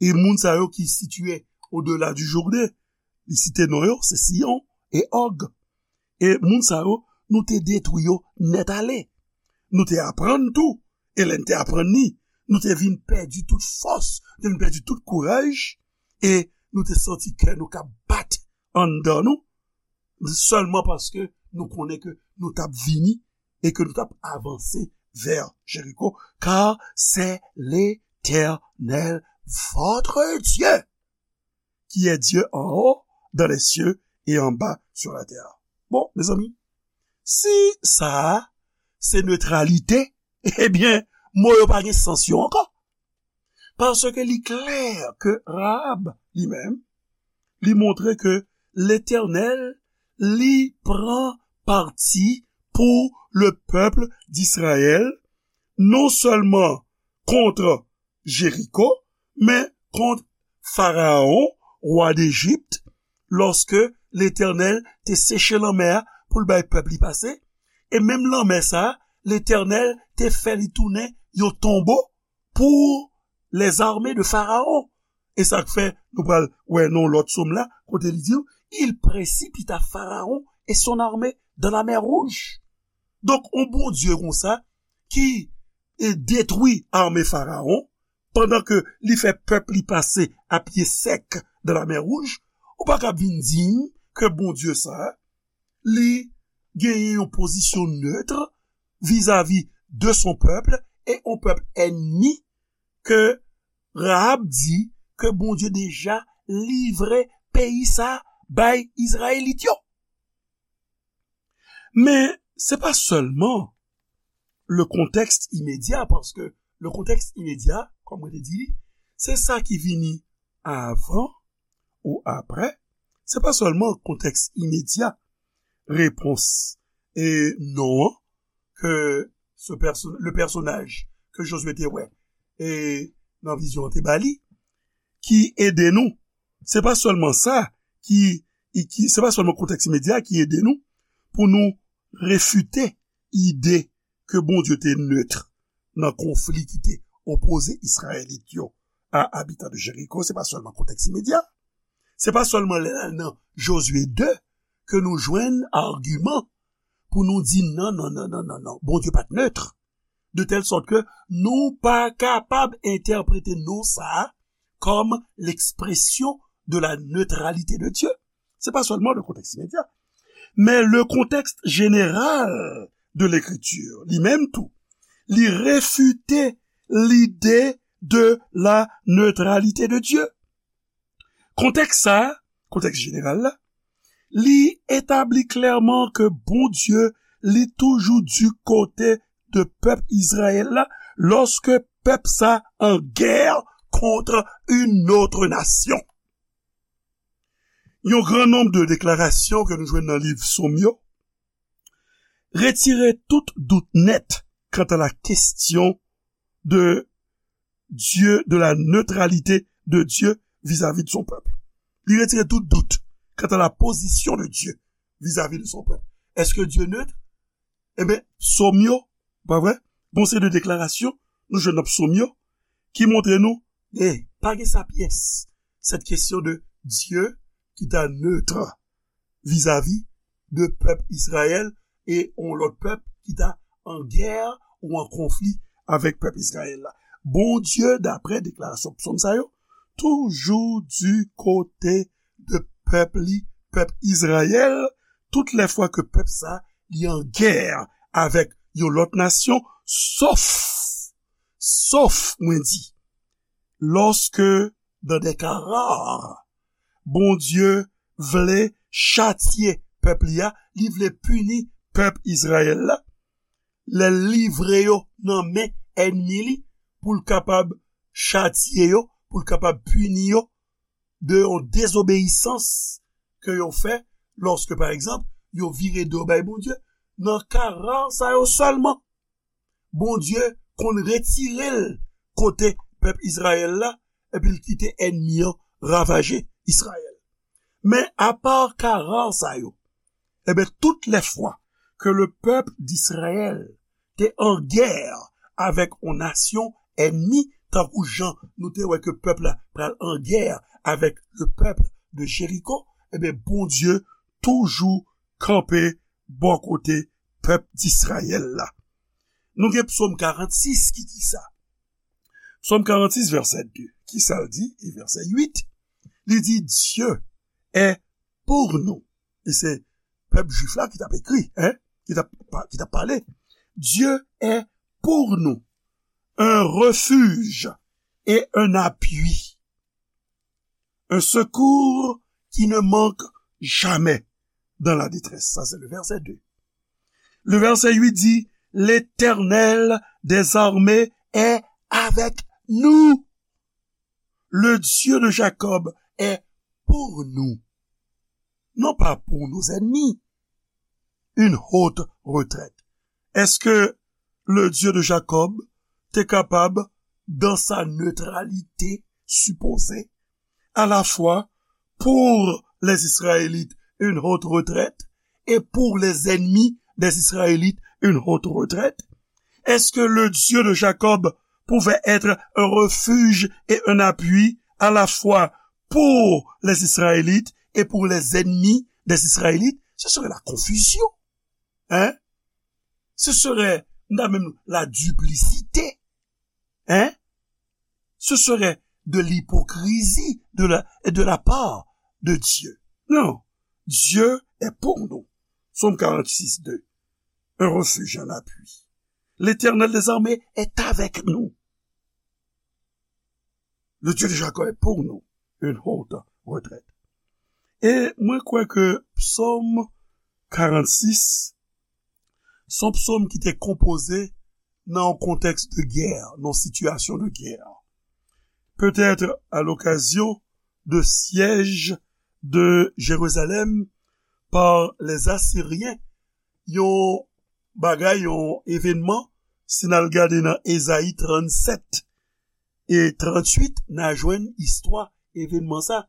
e moun sa yo ki sitiye odela di Jouden, li site non yo, se Siyon e Òg. E moun sa yo, nou te detwi yo nèt ale. Nou te aprann tou, e lè n te aprann li, nou te vin pèdi tout fòs, nou te vin pèdi tout kouraj, e nou te santi kè nou k ap bat anndan nou, sèlman paske nou konnen ke nou t ap vini e ke nou t ap avanse vè Jeriko, car c'est l'Éternel, votre Dieu, qui est Dieu en haut dans les cieux et en bas sur la terre. Bon, mezanmi, si sa a se netralite, ebyen, mo yo pa gen sans yo ankò. Paske li klè ke Rahab, li menm, li montre ke Letènèl, li pran pati pou le pèp d'Izrayèl, non sèlman kont Jeriko, men kont Farawon, wa Dejip, lòske Letènèl te seche lanmè a pou l bay pèp li pase, e menm lanmè sa a, Letènèl te fè li tounen yon tonbo pou lèzame de Farawon. E sa k fè nou pral wè nan lòt sòm la, kote li di, il précipita Pharaon et son armée dans la mer Rouge. Donk, yon Bondye konsa ki e detwi ame Farawon, pandan ke li fè pèp li pase a pye sèk dan lamè Wouj, ou pa kab vin di m ke Bondye sa a, li genyen yon pozisyon nèt vizavi de son pèp e yon pèp ènmi ke Rahab di ke Bondye deja livre peyi sa a bay Izrayelit yo. Men, se pa sèlman le contexte immédiat, paske le contexte immédiat, kòm mwen te di li, se sa ki vini avan ou aprè. Se pa sèlman kontèks imedya repons e non an ke ce perso- le personnage ke Josué te wè e nan vizyon an te ba li, ki ede nou. Se pa sèlman sa ki, ki se pa sèlman kontèks imedya ki ede nou pou nou refite ide ke Bondye te nèt nan konfli ki te opoze Izrayelit yo a abitan de Jeriko. Se pa sèlman kontèks imedya. Se pa sèlman lè n al nan Josué de ke nou jwenn agiman pou nou di non, non, non, non, non, non. Bondye pa t nèt. De tèl sòt ke nou pa kapab entèprete non sa a kòm l'expression de la neutralité de Dieu. Se pa sèlman le contexte immédiat, men le contexte général de l'écriture, li menm tou, li refite lide de la neutralité de Dieu. Kontèks sa a, kontèks jeneral la, li etabli klèman ke Bondye, li toujou di kote de pèp Izrayèl la, lòske pèp sa an gè kont une autre nation. Yon gran nonb de deklarasyon ke nou jwenn nan liv Sòm yo retire tout dout nèt kanta la kesyon de Dieu, de la neutralité de Dieu vis-à-vis de son peuple. Li retire tout dout kanta la pozisyon de Dieu vis-à-vis de son peuple. Èske Dye nèt? Ebyen, Sòm yo, pa vre? Gon seri de deklarasyon nou jwenn nan Sòm yo ki montre nou, e, pa gen sa pyès. Cette question de Dieu qui est neutre vis-à-vis de pèp Izrayèl e yon lòt pèp ki ta an gè ou an konfli avèk pèp Izrayèl la. Bondye, daprè deklarasyon psòm sa yo, toujou di kote de pèp li, pèp Izrayèl, tout lè fwa ke pèp sa li an gè avèk yon lòt nasyon, sof, sof, mwen di, lòske, dans des cas rares, Bondye vle chatye pèp li a, li vle pini pèp Izrayèl la, lè l livre yo nan men ènmi li pou l kapab chatye yo, pou l kapab pini yo de yon dezobeyisans ke yo fè Lòske, pa egzanp, yo vire do bay Bondye, nan ka ra sa yo sèlman, Bondye konn retire l kote pèp Izrayèl la, epi l kite ènmi an ravaje Izrayèl. Men apa ka ra sa yo, ebyen, tout lè fwa ke le pèp d'Izrayèl te an gè avèk yon nasyon ènmi, tankou jan nou te wè ke pèp la pral an gè avèk le pèp de Jeriko, ebyen, Bondye toujou kanpe bò kote pèp d'Izrayèl la. Nou gen Psaume quarante-six ki di sa. Psaume quarante-six, verset deux. Ki sa l di? E verset huit, li di, Dieu est pour nous. E se pèp jwif la ki t ap ekri, hein? Ki t ap pa- ki t ap pale. Dieu est pour nous un refuge et un appui, un secours qui ne manque jamais dans la détresse. Ça, c'est le verset deux. Le verset huit dit, L'Éternel des armées est avec nous. Le Dieu de Jacob est pour nous. Non pas pour nos ennemis. Une haute retraite. Est-ce que le Dieu de Jacob te kapab, dans sa neutralité supposée, à la fois pour les Israélites une haute retraite et pour les ennemis des Israélites une haute retraite? Est-ce que le Dieu de Jacob pouvait être un refuge et un appui à la fois pour les Israélites et pour les ennemis des Israélites? Ce serait la confusion. Hein? Ce serait, même la duplicité. Hein? Ce serait de l'hypocrisie de la, de la part de Dieu. Non. Dieu est pour nous. Psaume quarante-six, deux. Un refuge, un appui. L'Éternel des armées est avec nous. Le Dieu de Jacob est pour nous une haute retraite. E mwen kwè ke Psaume quarante-six, se yon psaume ki te konpoze nan yon kontèks de guerre, nan yon sitiyasyon de guerre. Peut-être à l'occasion de siège de Jérusalem par les Assyriens, yon bagay, yon evènman, si n al gade nan Ezayi tranntsèt e tranntuit, n a jwenn istwa evènman sa,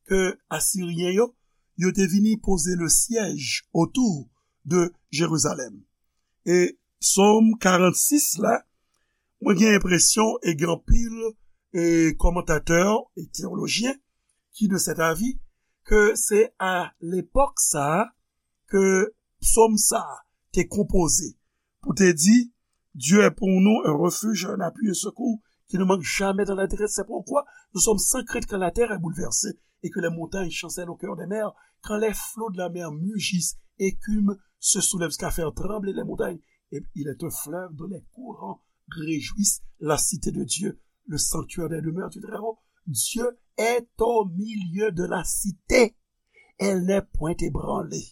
ke Asiryen yo, yo te vini poze le siège autour de Jérusalem. E Psaume quarante-six la, mwen gen enpresyon e gen anpil e kòmantatè e teyolojyen ki de cet avis ke se a lepòk sa a ke psaume sa a te konpoze pou te di, Dieu est pour nous un refuge, un appui, un secours qui ne manque jamais dans la détresse. C'est pourquoi nous sommes sans crainte quand la terre est bouleversée et que les montagnes chancellent au cœur des mers, quand les flots de la mer mugissent, écument, se soulèvent jusqu'à faire trembler les montagnes. Et il est un fleuve dont les courants réjouissent la cité de Dieu, le sanctuaire des demeures du Très-Haut. Dieu est au milieu de la cité. Elle n'est point ébranlée.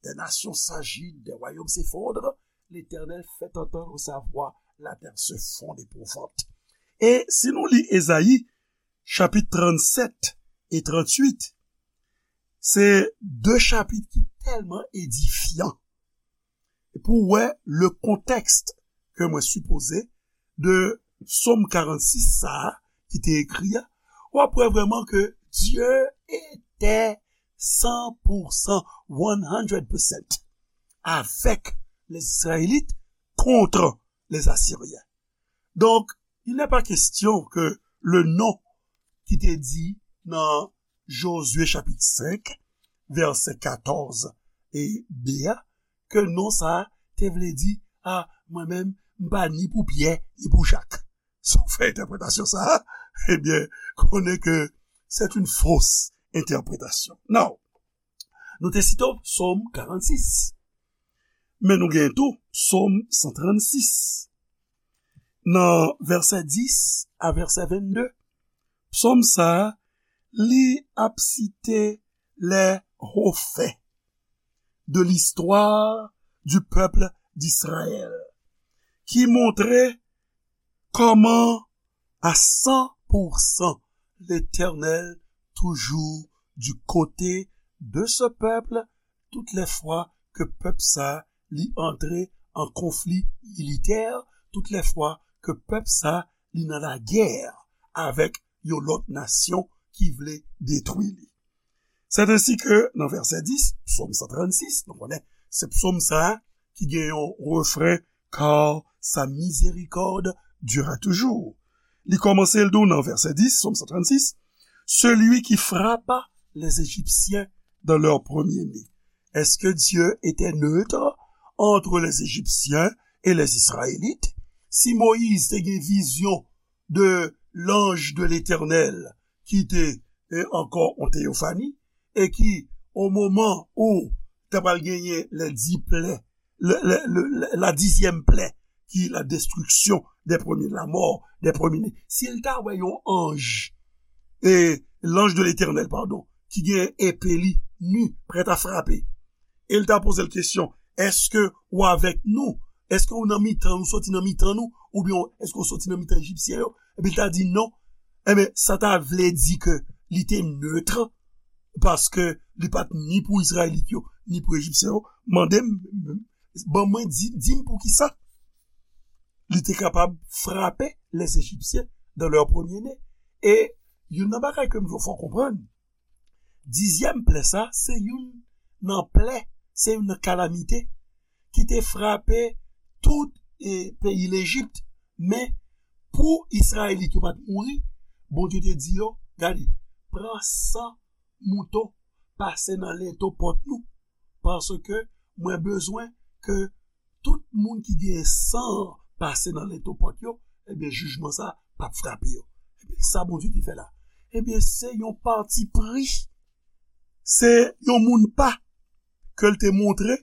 Des nations s'agitent, des royaumes s'effondrent. L'Éternel fait entendre sa voix, la terre se fond d'épouvante. E si nou li Ezayi, chapit tranntsèt e tranntuit, se de chapit ki tèlman edifyan. Pou wè le contexte ke mwen sipoze de Psaume quarante-six sa a ki te ekri a, w ap wè vrèman ke Dieu était cent pour cent, one hundred percent, avec les Israélites contre les Assyriens. Donc, il n'est pas question que le nom ki te di nan Josué chapit senk, vèsè katòz e de a, ke non sa a te vle di, a, mwen menm, m pa ni pou Pyè, ni pou Jak. Si w fè entèpretasyon sa a, ebyen, konnen ke c'est une fausse interprétation. Non. Nou te site Psaume quarante-six. Men nou gen tou Psaume cent trente-six. Nan vèsè dis a vèsè vennde, Psaume sa a, li ap site les hauts faits de l'histoire du peuple d'Israël, ki montre kòman à cent pour cent l'Éternel toujours du côté de ce peuple tout lè fwa ke pèp sa li antre an konfli militè, tout lè fwa ke pèp sa li nan lagè avèk yon lòt nasyon ki vle detwi li. C'est ainsi que nan vèsè dis, Psaume cent trente-six, nou konnen se psòm sa a ki gen yon refren, car sa miséricorde dure à toujours. Li kòmanse l di w nan vèsè dis, Psaume cent trente-six, celui qui frappa les Égyptiens dans leur premier-né. Est-ce que Dieu était neutre entre les Égyptiens et les Israélites? Si Moyiz te gen vizyon de l'ange de l'Éternel ki te e ankò yon teyofani, e ki, o moman ou ta pral genyen lè di plè, le, le, le, le, la dizyèm plè, ki la destriksyon dè premye, la mò dè premye ne. Si l ta wè yon anj, e l'ange de l'Éternel, padon, ki gen epe li, ni, prèt a frape, e l ta poze l kesyon, èske ou avèk nou? Èske ou nan mitan nou, soti nan mitan nou? Oubyen èske ou soti nan mitan Ejipsyen yo? Epi l ta di non. Ebyen, sa ta vle di ke li te nèt, paske li pa t ni pou Izrayelit yo, ni pou Ejipsyen yo. Mande m, ban mwen, di, di m poukisa li te kapab frape les Égyptiens dans leur premier-né. E youn nan bagay ke m vle fè w konprann, dizyèm plè sa, se youn nan plè, se youn nan kalamite ki te frape tout e, peyi Lejip. Men, pou Izrayelit yo pa t mouri, Bondye te di yo, gade, pran san mouton, pase nan lento pòt nou, paske mwen bezwen ke tout moun ki gen san pase nan lento pòt yo, ebyen, jijman sa p ap frape yo. Ebyen, sa Bondye te fè la? Ebyen, se yon pati pri, se yon moun pa ke l te montre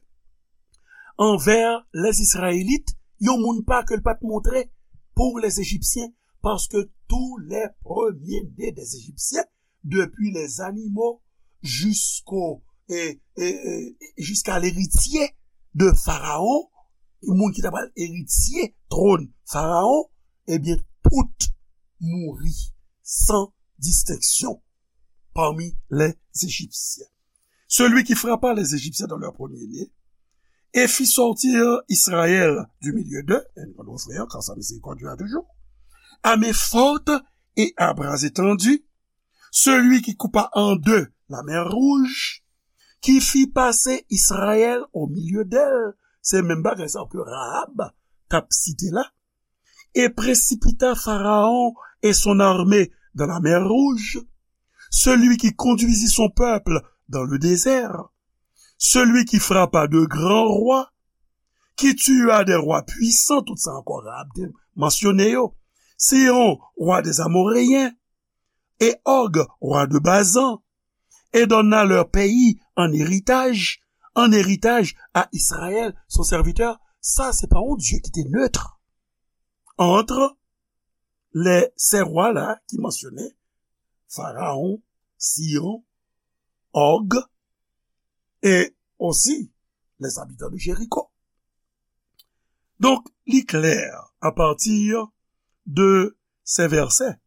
anvè les Izrayelit, yon moun pa ke l pa t montre pou les Ejipsyen, paske tou lè premye-ne dè Ejipsyen, depi les animaux jusqu'au, e, e, e, jusqu'à l'héritier de Pharaon, moun ki ta pral eritye twòn Farawon, ebyen, tout mouri san distenksyon parmi les Égyptiens. Celui qui frappa les Égyptiens dans leur premier-né et fit sortir Israël du milieu d'eux, e nou konn refren an, car sa miséricorde dure à toujours, à main forte et à bras étendus, celui qui coupa en deux la mer Rouge, qui fit passer Israël au milieu d'elle, se menm bagay sa ke Rahab t ap site la, et précipita Pharaon et son armée dans la mer Rouge, celui qui conduisit son peuple dans le désert, celui qui frappa de grands rois, qui tua des rois puissants, tout sa ankò Rahab te mansyone yo, Sihon, roi des Amoréens, et Og, roi de Basan, et donna leur pays en héritage, en héritage à Israël, son serviteur. Sa, se pa yon Dye ki te nèt entre les, ces rois-là ki mansyone, Pharaon, Sihon, Og, et aussi les habitants de Jéricho. Donc, li klè, à partir de ces versets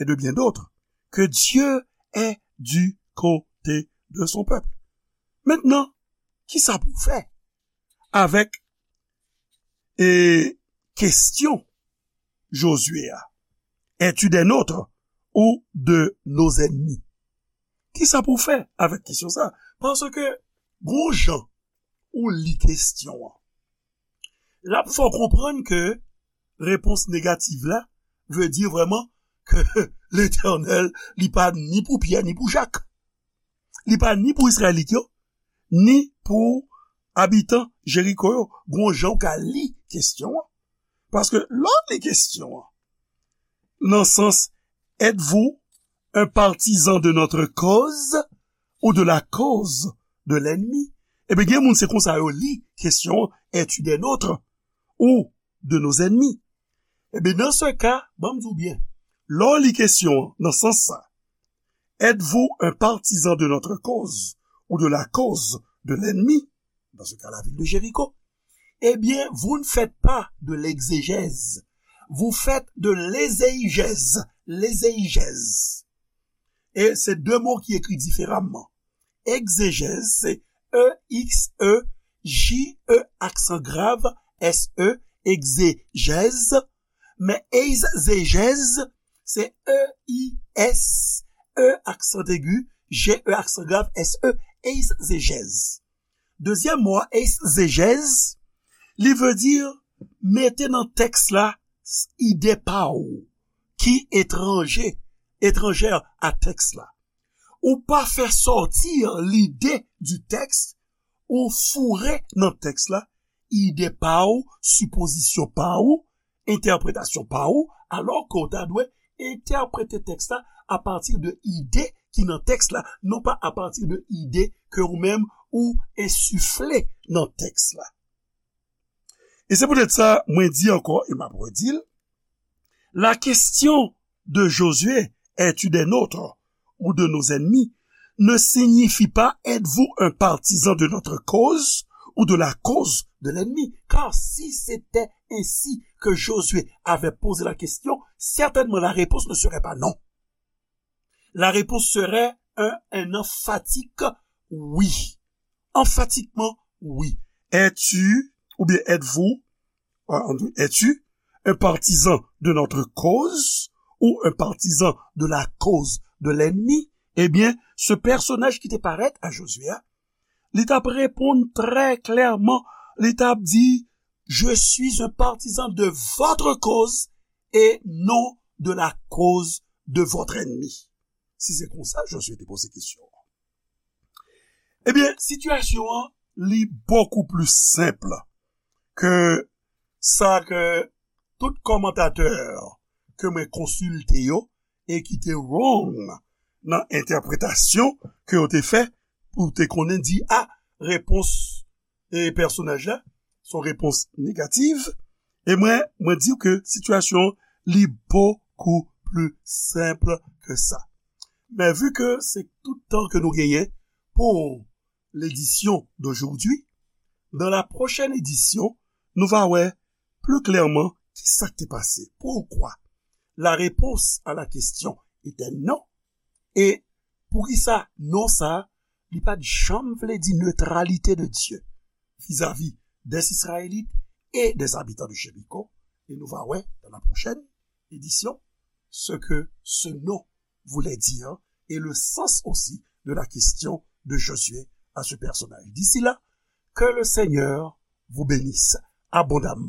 et de bien d'autres, que Dieu est du côté de son peuple. Maintenant, kisa pou fè avèk e kesyon Josué a? Es-tu des nôtres ou de nos ennemis? Kisa pou fè avèk kesyon sa? Paske gon jan ou li kesyon an, l ap fè w konprann ke repons negatif la vle di vrèman ke Letènèl, li pa ni pou Pyè ni pou Jak. Li pa ni pou Izrayelit yo, ni pou abitan Jeriko yo. Gon jan w ka li kesyon an. Paske lè w li kesyon an, nan sans, êtes-vous un partisan de notre cause ou de la cause de l'ennemi? Ebyen, gen moun se konsa yo li kesyon an, es-tu des nôtres ou de nos ennemis? Ebyen, dans ce cas, ban m di w byen, lè w li kesyon an nan sans sa, êtes-vous un partisan de notre cause ou de la cause de l'ennemi? Dans ce cas, la ville de Jéricho. Eh bien, vous ne faites pas de l'exégèse. Vous faites de l'ézéigèse. L'ézéigèse. E se de mo ki ekri diferaman. Egzejèz, se E X E, J E aksan grav, S E, egzejèz. Men eizejèz, se E I S E aksan egi, J E aksan grav, S E, eizejèz. Dezyèm mo a, eizejèz, li vle di mete nan tèks la ide pa w ki etranje, etranjè a tèks la. Ou pa fè sòti lide di tèks, ou foure nan tèks la ide pa w, sipozisyon pa w, entèpretasyon pa w, alò ke w ta dwe entèprete tèks la apati de ide ki nan tèks la, non pa apati de ide ke ou menm ou ensifle nan tèks la. E se poutèt sa, mwen di ankò, e m ap redi l, la question de Josué, es-tu des nôtres ou de nos ennemis, ne signifie pas êtes-vous un partisan de notre cause ou de la cause de l'ennemi. Car si c'était ainsi que Josué avait posé la question, certainement la réponse ne serait pas non. La réponse serait un, un emphatique oui. Emphatikman, wi. Es-tu, oubyen êtes-vous, euh, es-tu un partisan de notre cause ou un partisan de la cause de l'ennemi? Ebyen, se pèsonaj ki te parèt a Jozye a, li t ap reponn trè klèman, li t ap di, je suis un partisan de votre cause et non de la cause de votre ennemi. Si se konsa, Jozye te poze kesyon an. Ebyen, sitiyasyon an, li bokou pli senp ke sa ke tout kòmantatè ke mwen konsilte yo e ki te wrong nan entèpretasyon ke yo te fè pou te konnen di, a, repons e pèsonaj la, se yon repons negatif. E mwen, mwen di w ke sitiyasyon an, li bokou pli senp ke sa. Men vi ke se tout tan ke nou genyen pou l'édition d'aujourd'hui, dans la prochaine édition, nou va wè pli klèman ki sa k te pase. Pourquoi? La réponse à la question était non. E poukisa non sa, li pa t janm vle di neutralité de Dieu vis-à-vis des Israélites et des habitants de Jéricho. Et nous va wè dans la prochaine édition ce que ce non voulait dire et le sens aussi de la question de Josué à ce personnage. D'ici là, que le Seigneur vous bénisse abondamment.